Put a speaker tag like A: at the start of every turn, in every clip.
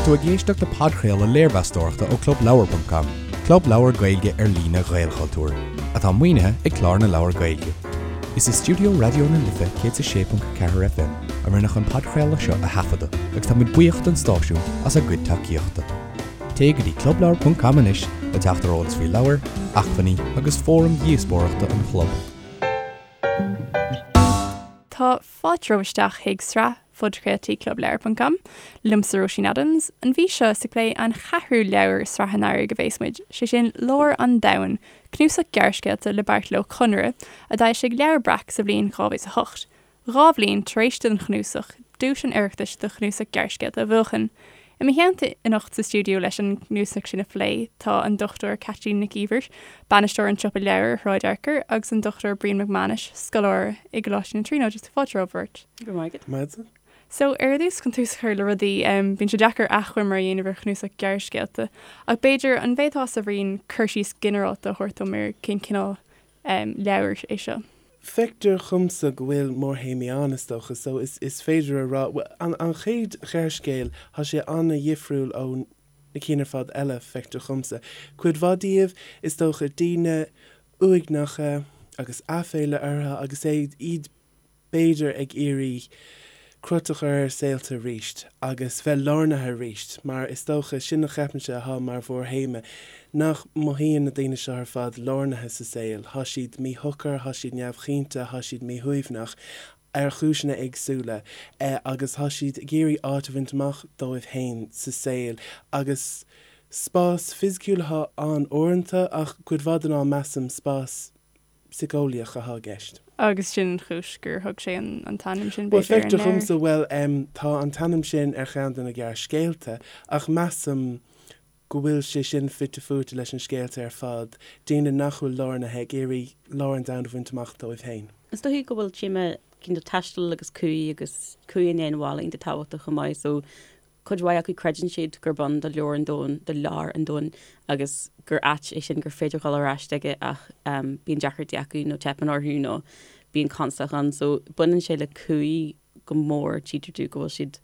A: tú ag éisteacht le podchraoladh léirmheastóireachta ó ClubLeabhar.com, club leabhar Gaeilge ar líne Ghaelchultúir, atá maoinithe ag Clár na Leabhar Gaeilge. Is i stiúideo Raidió na Life 106.4 FM a rinneadh an podchraoladh seo a thaifeadadh agus tá muid buíoch don stáisiún as a gcuid tacaíochta. Téigh go dtí clubleabhar.com anois le teacht ar eolas faoi leabhair, acmhainní agus fóraim dhíospóireachta an chlub.
B: Tá fáilte romhaibh isteach chuig sraith phodchraoltaí Clubleabhar ponc com, liomsa Róisín Adams. An mhí seo is ag plé an cheathrú leabhar i sraith an earraigh a bhéas muid, sé sin Lár an Domhain, cnuasach gearrscéalta le Beairtle Ó Conaire, a d'fhoilsigh Leabhar Breac sa bhliain 2008. 2 bhliain tar éis don chnuasach duais an Oireachtais do chnuasach gearrscéalta a bhuachan. I mo theannta anocht sa stiúideo leis an gcnuasach sin a phlé tá an Dr Caitlín Nic Íomhair, Bainisteoir an tSiopa Leabhar ar Shráid Fhearchair, agus an Dr Brian Mac Mánais, scoláire i gColáiste na Tríonóide. Fáilte romhaibh beirt.
C: Go raibh maith
B: agat. So, ar dtús, chun tús a chur le rudaí, bíonn sé deacair achoimre a dhéanamh ar chnuasach gearrscéalta, ach b'fhéidir, an bhféadfása, a Bhriain, cur síos ginearálta a thabhairt dom ar cén cineál leabhair é seo?
C: Feictear dhomsa go bhfuil mórthéamaí ann, is dócha, so is is féidir a rá, bhuel, an an chéad ghearrscéal, thá sé an-dhifriúil ó na cinn ar fad eile, feictear dhomsa. Cuid mhaith díobh, is dócha, daoine uaigneacha agus aiféala orthu agus é iad b'fhéidir ag iarraidh crot a chur ar a saolta arís agus bheith lárnaithe arís, mar is dócha, sin a cheapaimse athá mar mhórthéama, nach mothaíonn na daoine seo ar fad lárnaithe sa saol, thá siad míshocair, thá siad neamhchinnte, thá siad míshuaimhneach, ar chúiseanna éagsúla, agus thá siad ag iarraidh áit a bhaint amach dóibh féin sa saol, agus spás fisiciúil athá ann uaireanta, ach cuid mhaith den am measaim spás síceolaíoch athá i gceist.
B: Agus sin an chúis gur thug sé an t-ainm sin,
C: Bhuel, b'fhéidir, ar an feictear leabhar. dhomsa, bhuel, em, tá an t-ainm sin ar cheann de na gearrscéalta, ach measaim go bhfuil sé sin fite fuaite leis an scéalta ar fad, daoine nach bhfuil lárnaithe ag iarraidh lár an domhain a bhaint amach dóibh féin.
D: Is dóichí go bhfuil téama cineál taistil agus cumhaidh agus cumhaidh i ndiaidh an bhaile iontach tábhachtach chomh maith, so Cuid mhaith acu creideann siad gurb ann do leabhar an domhain, do lár an domhain agus gur áit é sin gur féidir dhul ar ais chuige ach bíonn deacrachtaí acu nó teipeann orthu nó bíonn constaic ann. So baineann sé le cumhaidh go mór, tchítear domh go bhfuil siad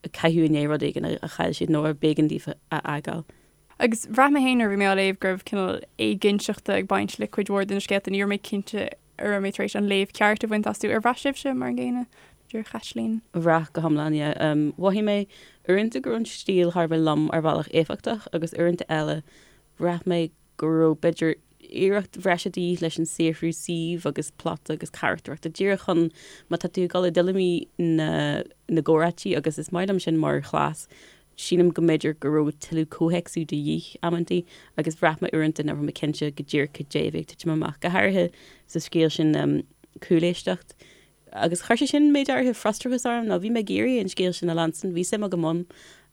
D: ag caitheamh i ndiaidh rud éigin a chaill siad nó ar b'éigean daofa a fhágáil.
B: Agus bhraith mé féin nuair a bhí mé á léamh go raibh cineál éiginnteachta ag baint le cuid mhór de na scéalta. Ní raibh mé cinnte an raibh mé tar éis an léamh ceart a bhaint astu. Ar bhraith sibhse mar an gcéanna, b'fhéidir, a Chaitlín?
D: Bhraith go hiomlán, yeah. Mhothaigh mé uaireanta go raibh an stíl thar a bheith lom ar bhealach éifeachtach agus uaireanta eile bhraith mé go raibh b'fhéidir iarracht bhreise de dhíth leis an saothrú suímh agus plota agus carachtarachta díreach chun má tá tú ag dul i dtuilleamaí na na gcomhráití agus is maith liom sin mar chleas Sílim go mb'fhéidir go raibh tuilleadh comhthéacsú de dhíth amantaí agus bhraith mé uaireanta nach raibh mé cinnte go díreach cad é a bhí ag titim amach, go háirithe sa scéal sin Cúléisteacht. Agus chuir sé sin méid áirithe frustrachas orm nó bhí mé ag iarraidh an scéal sin a leanstan, bhí suim agam ann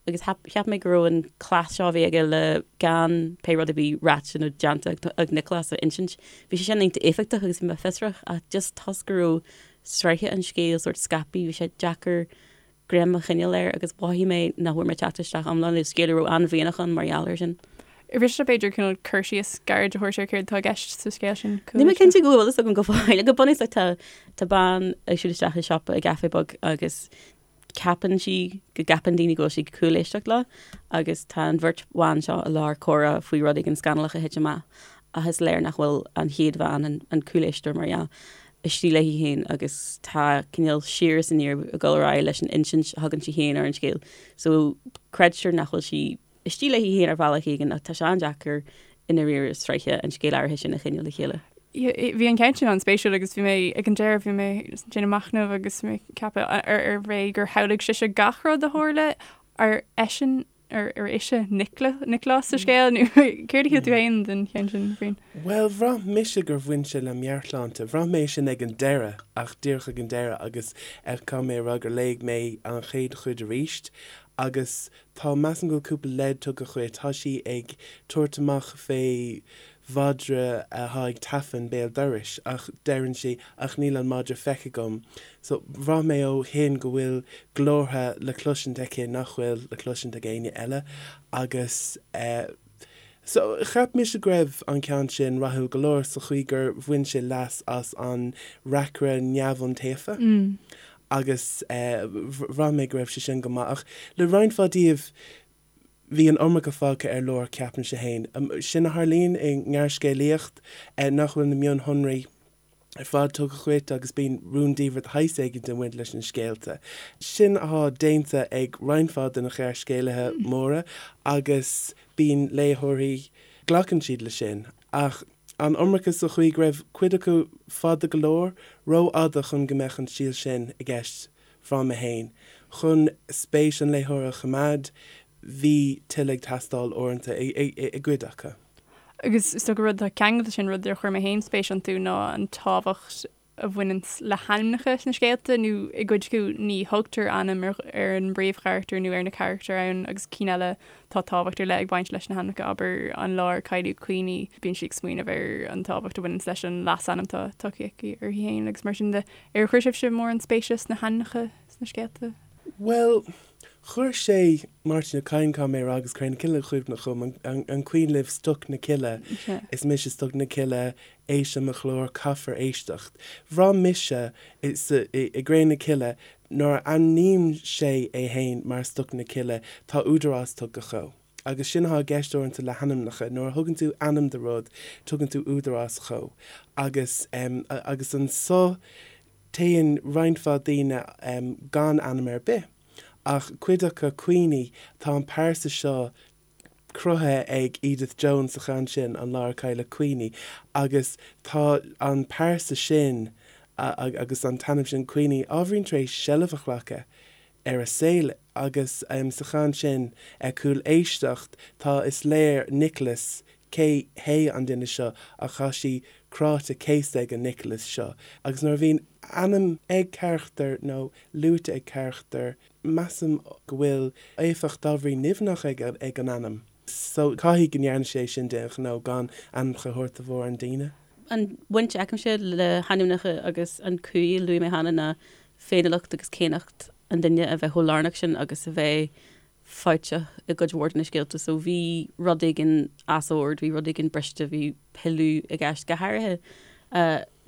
D: agus cheap mé go raibh an cleas seo a bhí aige le gan pé rud a bhí ráite nó déanta ag Nioclás a insint, bhí sé sin iontach éifeachtach agus bhí mé fiosrach ach just toisc go raibh sraithe an scéil sórt scaipthe, bhí sé deacair greim a choinneáil air agus mhothaigh mé nach bhfuair mé teacht isteach iomlán le scéal a raibh an-mhianach ann mar gheall air sin.
B: Ar mhiste b'fhéidir cineál cur síos gairid a thabhairt ar céard atá i gceist sa scéal sin?
D: Níl mé cinnte go bhfuil fhios agam go fóill. Go bunúsach tá tá bean ag siúl isteach i siopa i gcaife beag agus ceapann sí go gceapann daoine go bhfuil sí ag cúléisteacht leo agus tá an bheirt bhan seo i lár comhrá faoi rud éigin scannalach a thit amach ach is léir nach bhfuil an chéad bhean, an cúléisteoir mar dhea, istigh léi féin agus tá cineál siar is aniar ag dul ar aghaidh leis an insint a thugann sí féin ar an scéal. So creidtear nach bhfuil sí istigh léi féin ar bhealach éigin ach tá sé an-deacair i ndáiríre sraithe an scéil áirithe sin a choinneáil le chéile.
B: Bhí an ceann sin an-spéisiúil agus bhí mé ag an deireadh bhí mé ag déanamh machnaimh agus mé ag ceapadh ar ar bhé gur shamhlaigh sise gach rud a tharla ar eisean Ar ar ise Nioclás sa scéal nó céard a shíl tú féin den cheann sin, Bhriain?
C: Bhuel, bhraith mise gur bhain sé le meabhairshláinte. Bhraith mé sin ag an deireadh, ach díreach ag an deireadh, agus caithfidh mé a rá gur léigh mé an chéad chuid arís agus tá, measaim go bhfuil cúpla leid tugtha dhuit. Tá sí ag tabhairt amach fé mhadra athá ag tafann béal dorais ach deireann sí ach níl an madra feicthe agam so bhraith mé ó shin go bhfuil glórtha le cloisint aici nach bhfuil le cloisint ag éinne eile agus eh so cheap mise go raibh an ceann sin rathúil go leor sa chaoi gur bhain sé leas as an reacaire neamhiontaofa agus eh bhraith mé go raibh sé sin go maith ach le roinnt mhaith díobh. Bhí an iomarca fágtha ar lár, ceapaimse féin. Sin a tharlaíonn i ngearrscéalaíocht, nach bhfuil na mionshonraí ar fad tugtha dhuit agus bíonn rúndiamhair de shaghas éigin ag baint leis na scéalta. Sin athá déanta ag roinnt mhaith de na gearrscéalaithe móra agus bíonn léitheoirí, glacann siad le sin. Ach an iomarca sa chaoi go raibh cuid acu fada go leor, rófhada chun go mbeadh an stíl sin i gceist bhraith mé féin. Chun spéis an léitheora a choimeád, bhí tuilleadh ag teastáil uaireanta i gcuid acu.
B: Agus is dócha rud atá ceangailte leis sin, rud ar chuir mé féin spéis iontu ná an tábhacht a bhaineanns le hainmneacha sna scéalta, nó i gcuid acu ní thugtar ainm ar an bpríomhcharachtar nó ar na carachtair ann agus cinn eile tá tábhacht ar leith ag baint leis na hainmneacha, abair an lá ar cailleadh Queenie, bíonn sí ag smaoineamh ar an tábhacht a bhaineanns leis an leasainm atá tugtha aici uirthi féin agus mar sin de. Ar chuir sibhse mórán spéise sna hainmneacha sna scéalta?
C: Bhuel, chuir sé Máirtín Ó Cadhain, caithfidh mé a rá, agus Cré na Cille i gcuimhne dhom, an cuimhin libh Stoc na Cille, is mise Stoc na Cille, éist le mo ghlór, caithfear éisteacht. Bhraith mise i gCré na Cille, nuair a ainmníonn sé é fhéin mar Stoc na Cille, tá údarás tugtha dhó. Agus sin athá i gceist uaireanta le hainmneacha, nuair a thugann tú ainm do rud, tugann tú údarás dhó. Agus, agus anso téann roinnt mhaith daoine gan ainm ar bith. Ach cuid acu, Queenie, tá an pearsa seo cruthaithe ag Edith Jones sa cheann sin, An Lá Ar Cailleadh Queenie, agus tá an pearsa sin agus an t-ainm sin Queenie ábhairín tar éis seilbh a ghlacadh ar a saol agus sa cheann sin, Cúléisteacht, tá, is léir Nicholas, cé hé an duine seo ach tá sí cráite céasta ag an Nicholas seo agus nuair a bhíonn ainm ag carachtar nó luaite ag carachtar, measaim go bhfuil éifeacht ábhairín nimhneach ag an ainm. So caithfidh go ndearna sé sin d'aon ghnó gan ainmneacha a thabhairt do mhórán daoine.
D: An bhaint a fheicimse le hainmneacha agus an cumhaidh a luaigh mé cheana ná féiniúlacht agus céannacht an duine a bheith chomh lárnach sin agus a bheith fabhtach i gcuid mhór de na scéalta. So bhí rud éigin as ord, bhí rud éigin briste, bhí pilleadh i gceist. Go háirithe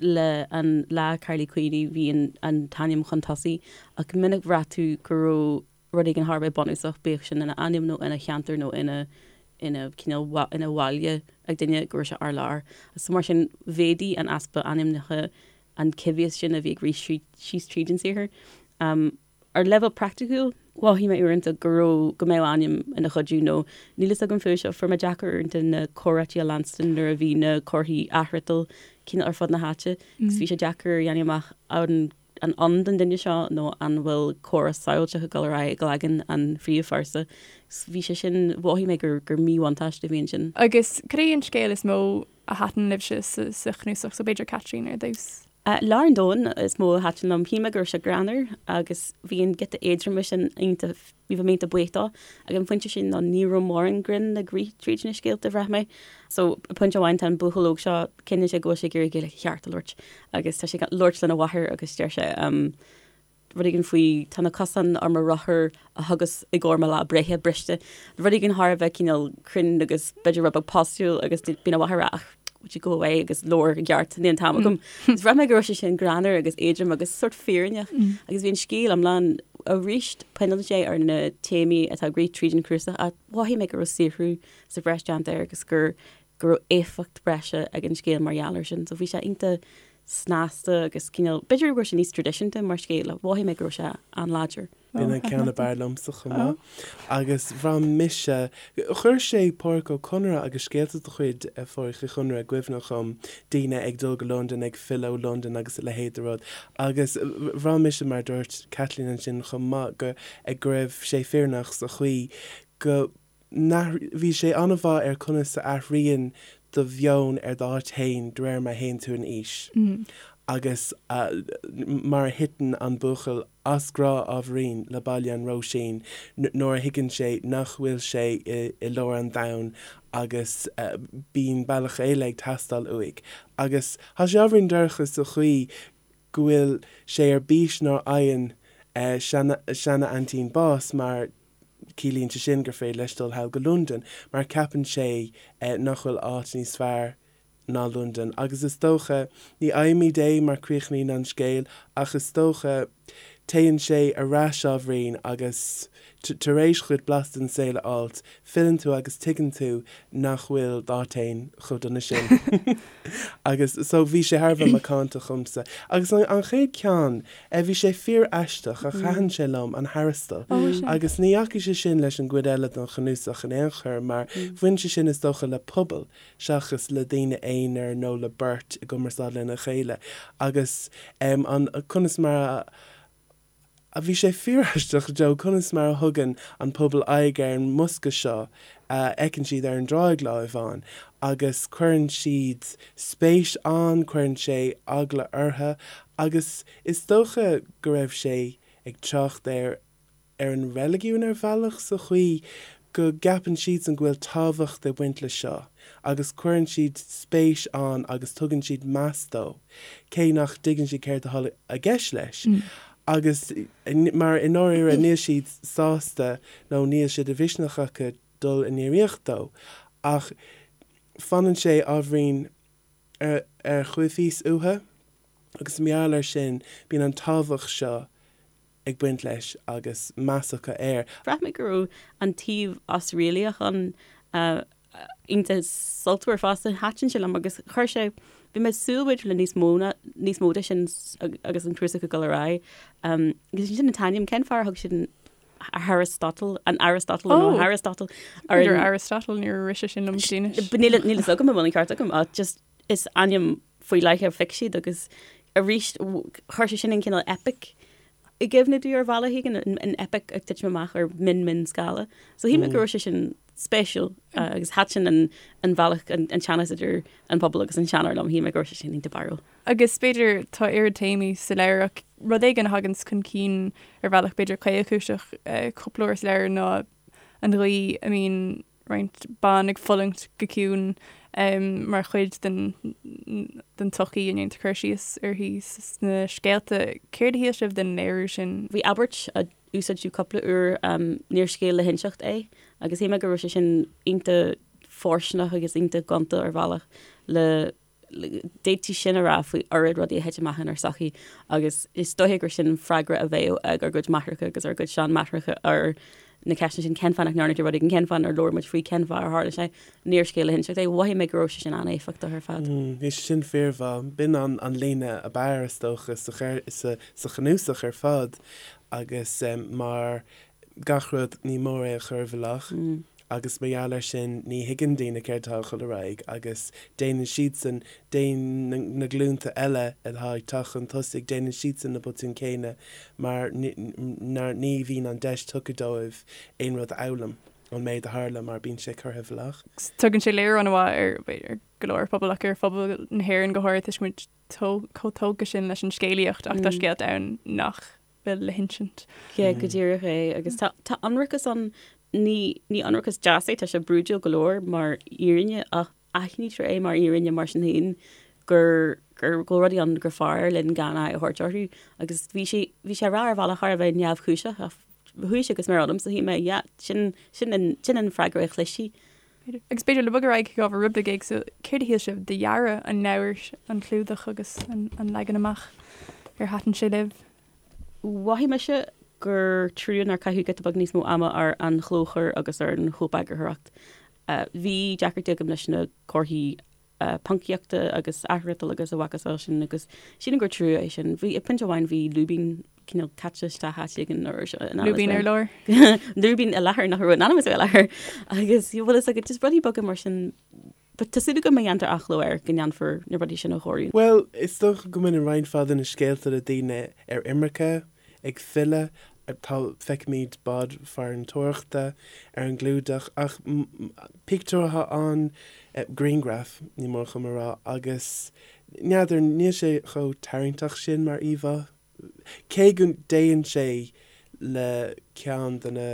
D: le An Lá Cailleadh Queenie, bhí an t-ainm chun tosaigh ach go minic bhraith tú go raibh rud éigin thar a bheith bunúsach, bíodh sin ina ainm nó ina cheantar nó ina ina cineál ina bhaile ag duine, go raibh sé ar lár. So mar sin mhéadaigh an easpa ainmneacha an coimhthíos sin a bhí ag rith síos tríd an saothar. Ar leibhéal praiticiúil, mhothaigh mé uaireanta go raibh, go mbeadh ainm ina chuidiú nó níl fhios agam fúthu seo, fuair mé deacair uaireanta na comhráití a leanstan nuair a bhí na comharthaí athfhriotail cineál ar fud na háite agus bhí sé deacair a dhéanamh amach an an ann don duine seo nó an bhfuil comhrá samhailteach ag dul ar aghaidh i gcloigeann an phríomhphearsa. Bhí sé sin, mhothaigh mé gur gur míbhuntáiste a bhí ansin.
B: Agus cad é an scéal is mó a thaitin libhse sa chnuasach so b'fhéidir Caitlín ar dtús?
D: Lár an Domhain is mó a thaitin liom. Shíl mé go raibh sé greannmhar agus bhí an giota éadroime sin iontach, bhí mé iontach buíoch dó. Ag an phointe sin nó ní raibh mórán grinn ag rith tríd na scéalta, bhraith mé. So, pointe amháin tá an buachaill óg seo, cinneann sé go bhfuil sé ag iarraidh Gaeilge cheart a labhairt agus tá sé ag labhairt lena mháthair agus deir sé, rud éigin faoi tá na cosáin ar mo rothar a thugas i gcomhair mo lá breithe briste. Rud éigin thar a bheith cineál cruinn agus b'fhéidir rud beag postúil agus bíonn a mháthair ag rá ach would you go away agus labhair i gceart níl an t-am agam. Is bhraith mé go raibh sé sin greannmhar agus éadrom agus sórt fírinneach agus bhí an scéal iomlán arís coinníonn sé ar na téamaí atá ag rith tríd an chnuasach ach mhothaigh mé go raibh saothrú sa bhreis déanta air agus gur go raibh éifeacht breise ag an scéal mar gheall air sin. So bhí sé iontach snasta agus cineál, b'fhéidir go raibh sé níos traidisiúnta mar scéal ach mhothaigh mé go raibh sé an-láidir.
C: B'in an ceann ab fhearr liomsa chomh maith. Agus bhraith mise, chuir sé Pádraic Ó Conaire agus scéalta de chuid Phádraic Uí Chonaire i gcuimhne dhom, daoine ag dul go Londain, ag filleadh ó Londain agus a leithéid de rud. Agus bhraith mise, mar a dúirt Caitlín ansin chomh maith, go, go raibh sé fírinneach sa chaoi go, Bhí sé an-mhaith ar conas a athraíonn do mheon ar d'áit fhéin de réir mar a théann tú in aois agus mar a thiteann an buachaill as grá ábhairín le Baile an Róisín nuair a thuigeann sé nach bhfuil sé i lár an domhain agus bíonn bealach eile ag teastáil uaidh. Agus tá sé ábhairín dorcha sa chaoi go bhfuil sé ar bís nuair a fhaigheann seana-aintín bás mar Ciallaíonn sé sin gur féidir leis dul thall go Londain mar ceapann sé nach bhfuil áit níos fearr ná Londain. Agus is dócha, ní fhaighimid é mar críochnaíonn an scéal, ach is dócha, Téann sé ar ais ábhairín agus tar éis dhuit blas den saol a fháilt, filleann tú agus tuigeann tú nach bhfuil d'áit fhéin chomh dona sin. Agus so bhí sé thar a bheith macánta dhomsa. Agus an chéad ceann, bhí sé fíor-aisteach ach thaitin sé liom, an Harastal. Agus ní dheachaigh sé sin leis an gcuid eile den chnuasach in aon chor mar bhain sé sin is dócha le pobal seachas le daoine aonair nó le beirt i gcumarsáid lena chéile agus an conas mar a bhí sé fíoraisteach Joe conas mar a thugann an pobal aghaidh ar an mbosca seo a fheiceann siad ar an dtráigh lá amháin agus cuireann siad spéis ann, cuireann sé eagla orthu agus is dócha go raibh sé ag trácht ar ar an reiligiún ar bhealach sa chaoi go gceapann siadsan go bhfuil tábhacht ag baint le seo agus cuireann siad spéis ann agus tugann siad meas dó cé nach dtuigeann siad céard atá i gceist leis agus mar i ndáiríre níl siad sásta nó níl sé de mhisneach acu dul i ndraíocht dó ach fanann sé ábhairín ar choimhthíos uathu agus mar gheall air sin bíonn an tábhacht seo ag baint leis agus meas acu air.
D: Bhraith mé go raibh an taobh osréalaíoch ann iontach sultmhar fosta. Thaitin sé liom agus chuir sé, bhí mé ag súil b'fhéidir le níos mó ná, níos mó de sin agus an cnuasach ag dul ar aghaidh. Agus ansin an t-ainm, cén fáth ar thug siad an Aristotle, an Aristotle nó an Aristotle
B: ar an. Aristotle, níor rith sé sin liom go dtí
D: anois. Níl a fhios agam an bhfuil an ceart agam ach just is ainm faoi leith a phioc siad agus arís chuir sé sin an cineál epic i gcuimhne domh ar bhealach éigin, an epic ag titim amach ar mion mion scála. So shíl mé go raibh sé sin spéisiúil agus thaitin an an bhealach an teannas idir an pobal agus an seanóir liom, shíl mé go raibh sé sin iontach barrúil.
B: Agus b'fhéidir tá oiread téamaí sa leabhar ach rud éigin a thaganns chun cinn ar bhealach b'fhéidir caolchúiseach cúpla uair sa leabhar ná an gcaoi a mbíonn roinnt ban ag fulaingt go ciúin mar chuid den den tsochaí a ndéantar cur síos uirthi sna scéalta. Céard a shíl sibh den léiriú sin?
D: Bhí abairt a úsáideadh cúpla uair, níor scéal le hinseacht é, agus shíl mé go raibh sé sin iontach fóirsteanach agus iontach gonta ar bhealach le D'fhéadfaí sin a rá faoi oiread rudaí a thit amach inár sochaí agus is dóiche gur sin freagra a bheadh ag ár gcuid máithreacha agus ár gcuid seanmáithreacha ar na ceisteanna sin, cén fáth nach ndearna tú rud éigin, cén fáth nár labhair muid faoi, cén fáth ar tharla sé, níor scéal le hinseacht é. Mhothaigh mé go raibh sé sin an-éifeachtach ar fad.
C: Bhí sé sin fíormhaith. B'in an líne ab fhearr, is dócha, sa chnuasach ar fad agus mar gach rud, ní mór é a chur i bhfolach agus mar gheall air sin ní thuigeann daoine céard atá ag dul ar aghaidh agus déanann siadsan, déanann na glúnta eile atá ag teacht chun tosaigh, déanann siadsan na botúin céanna mar ní bhíonn an deis tugtha dóibh aon rud a fhoghlaim ón méid a tharla mar bíonn sé curtha i bhfolach.
B: Tugann sé léiriú an-mhaith ar go leor pobal ach ar phobal na hÉireann go háirithe toisc go bhfuil muid chomh tógtha sin leis an scéalaíocht ach tá scéalta ann nach bhfuil le hinsint.
D: Yeah, go díreach é. Agus tá, tá ionracas ann, ní, ní ionracas deas é, tá sé brúidiúil go leor mar fhírinne ach aithnítear é mar fhírinne mar sin féin gur, gur, go bhfuil rudaí ann gur fearr linn gan aghaidh a thabhairt orthu. Agus bhí sé, bhí sé á rá ar bhealach thar a bheith neamhchúiseach ach chuaigh sé go smior ionamsa, shíl mé, yeah, sin, sin an, sin an freagra a chloisfí.
B: Agus b'fhéidir le bogadh ar aghaidh chuig ábhar rud beag éagsúil, céard a shíl sibh de dhearadh an leabhair, an clúdach agus an leagan amach? Ar thaitin sé libh?
D: Mhothaigh mise gur trua nár caitheadh giota beag níos mó ama ar an chlóchur agus ar an chóipeagarthóireacht. Bhí deacrachtaí agam leis na comharthaí poncaíochta agus athfhriotail agus a mhacasamhail sin agus sílim gur trua é sin. Bhí, ag pointe amháin bhí lúibín cineál caite isteach áit éigin nó
B: in ainm is Lúibín ar lár.
D: Lúibín i láthair nach raibh in ainm is a bheith i láthair agus bhfuil fhios agat just rudaí beaga mar sin. But tá súil agam má dhéantar athchló air go ndéanfar na rudaí sin a chóiriú.
C: Bhuel, is dócha go mbaineann roinnt mhaith de na scéalta le daoine ar imirce, ag filleadh, tá, feicimid bád farantóireachta ar an gclúdach ach pictiúr atá ann, grianghraf, ní mór dhom a rá, agus n'fheadar, níl sé chomh tarraingteach sin mar íomhá, cé go dtéann sé le ceann de na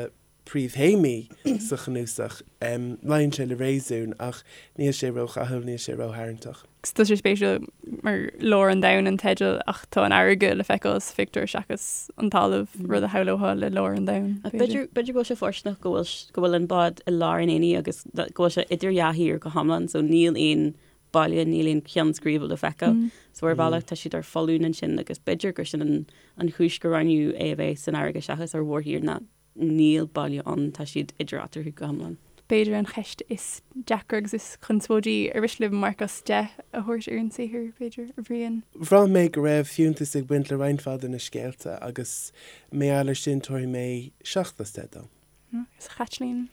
C: príomhthéamaí sa chnuasach. Luíonn sé le réasún ach níl sé ródhathúil, níl sé rótharraingteach.
B: Tá sé spéisiúil mar Lár an Domhain an teideal ach tá an fharraige le feiceáil sa phictiúr seachas an talamh, rud a shamhlófá le lár an domhain,
D: b'fhéidir. B'fhéidir go bhfuil sé fóirsteanach go bhfuil go bhfuil an bád i lár an aonaigh agus go bhfuil sé idir dhá thír go hiomlán so níl aon. baile, níl aon cheann scríbe le feiceáil. So ar bhealach tá siad ar foluain ansin agus b'fhéidir gur sin an an chúis gur roghnaíodh é a bheith san fharraige seachas ar mhórthír ná níl baile ann, tá siad idir eatarthu go hiomlán.
B: B'fhéidir an cheist is deacra agus is conspóidí ar mhiste libh marc as 10 a thabhairt ar an saothar, b'fhéidir, a Bhriain?
C: Bhraith mé go raibh fiúntas ag baint le roinnt mhaith de na scéalta agus mar gheall air sin tabharfaidh mé 7 as 10 dó.
B: Agus a Chaitlín?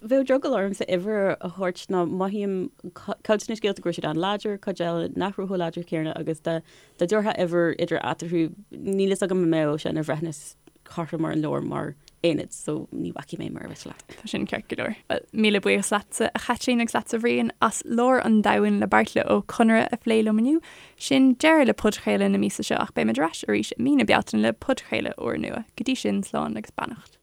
D: Bheadh drogall ormsa uimhir a thabhairt ná mothaím cuid de na scéalta go raibh siad an-láidir, cuid eile nach raibh chomh láidir céanna agus dá dtabharfá uimhir idir eatarthu níl fhios agam an mbeadh sé ina bhreithiúnas cothrom ar an leabhar mar aonad so ní bhacfaidh mé mar a mhiste leat.
B: Tá sin ceart go leor. Bhuel, míle buíochas leatsa a Chaitlín agus leatsa a Bhriain as Lár an Domhain le Beairtle Ó Conaire a phlé liom inniu. Sin deireadh le podchraoladh na míosa seo ach beimid ar ais arís i mí na Bealtaine le podchraoladh úrnua. Go dtí sin, slán agus beannacht.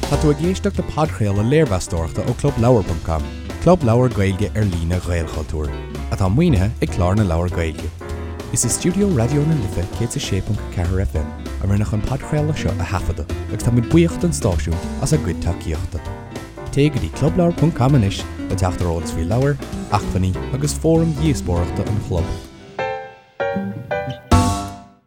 A: Tá tú ag éisteacht le podchraoladh léirmheastóireachta ó ClubLeabhar.com, club leabhar Gaeilge ar líne Ghaelchultúir, atá maoinithe ag Clár na Leabhar Gaeilge. Is i stiúideo Raidió na Life 106.4 FM a rinneadh an podchraoladh seo a thaifeadadh agus táimid buíoch don stáisiún as a gcuid tacaíochta. Téigh go dtí clubleabhar.com anois le teacht ar eolas faoi leabhair, acmhainní agus fóraim dhíospóireachta an chlub.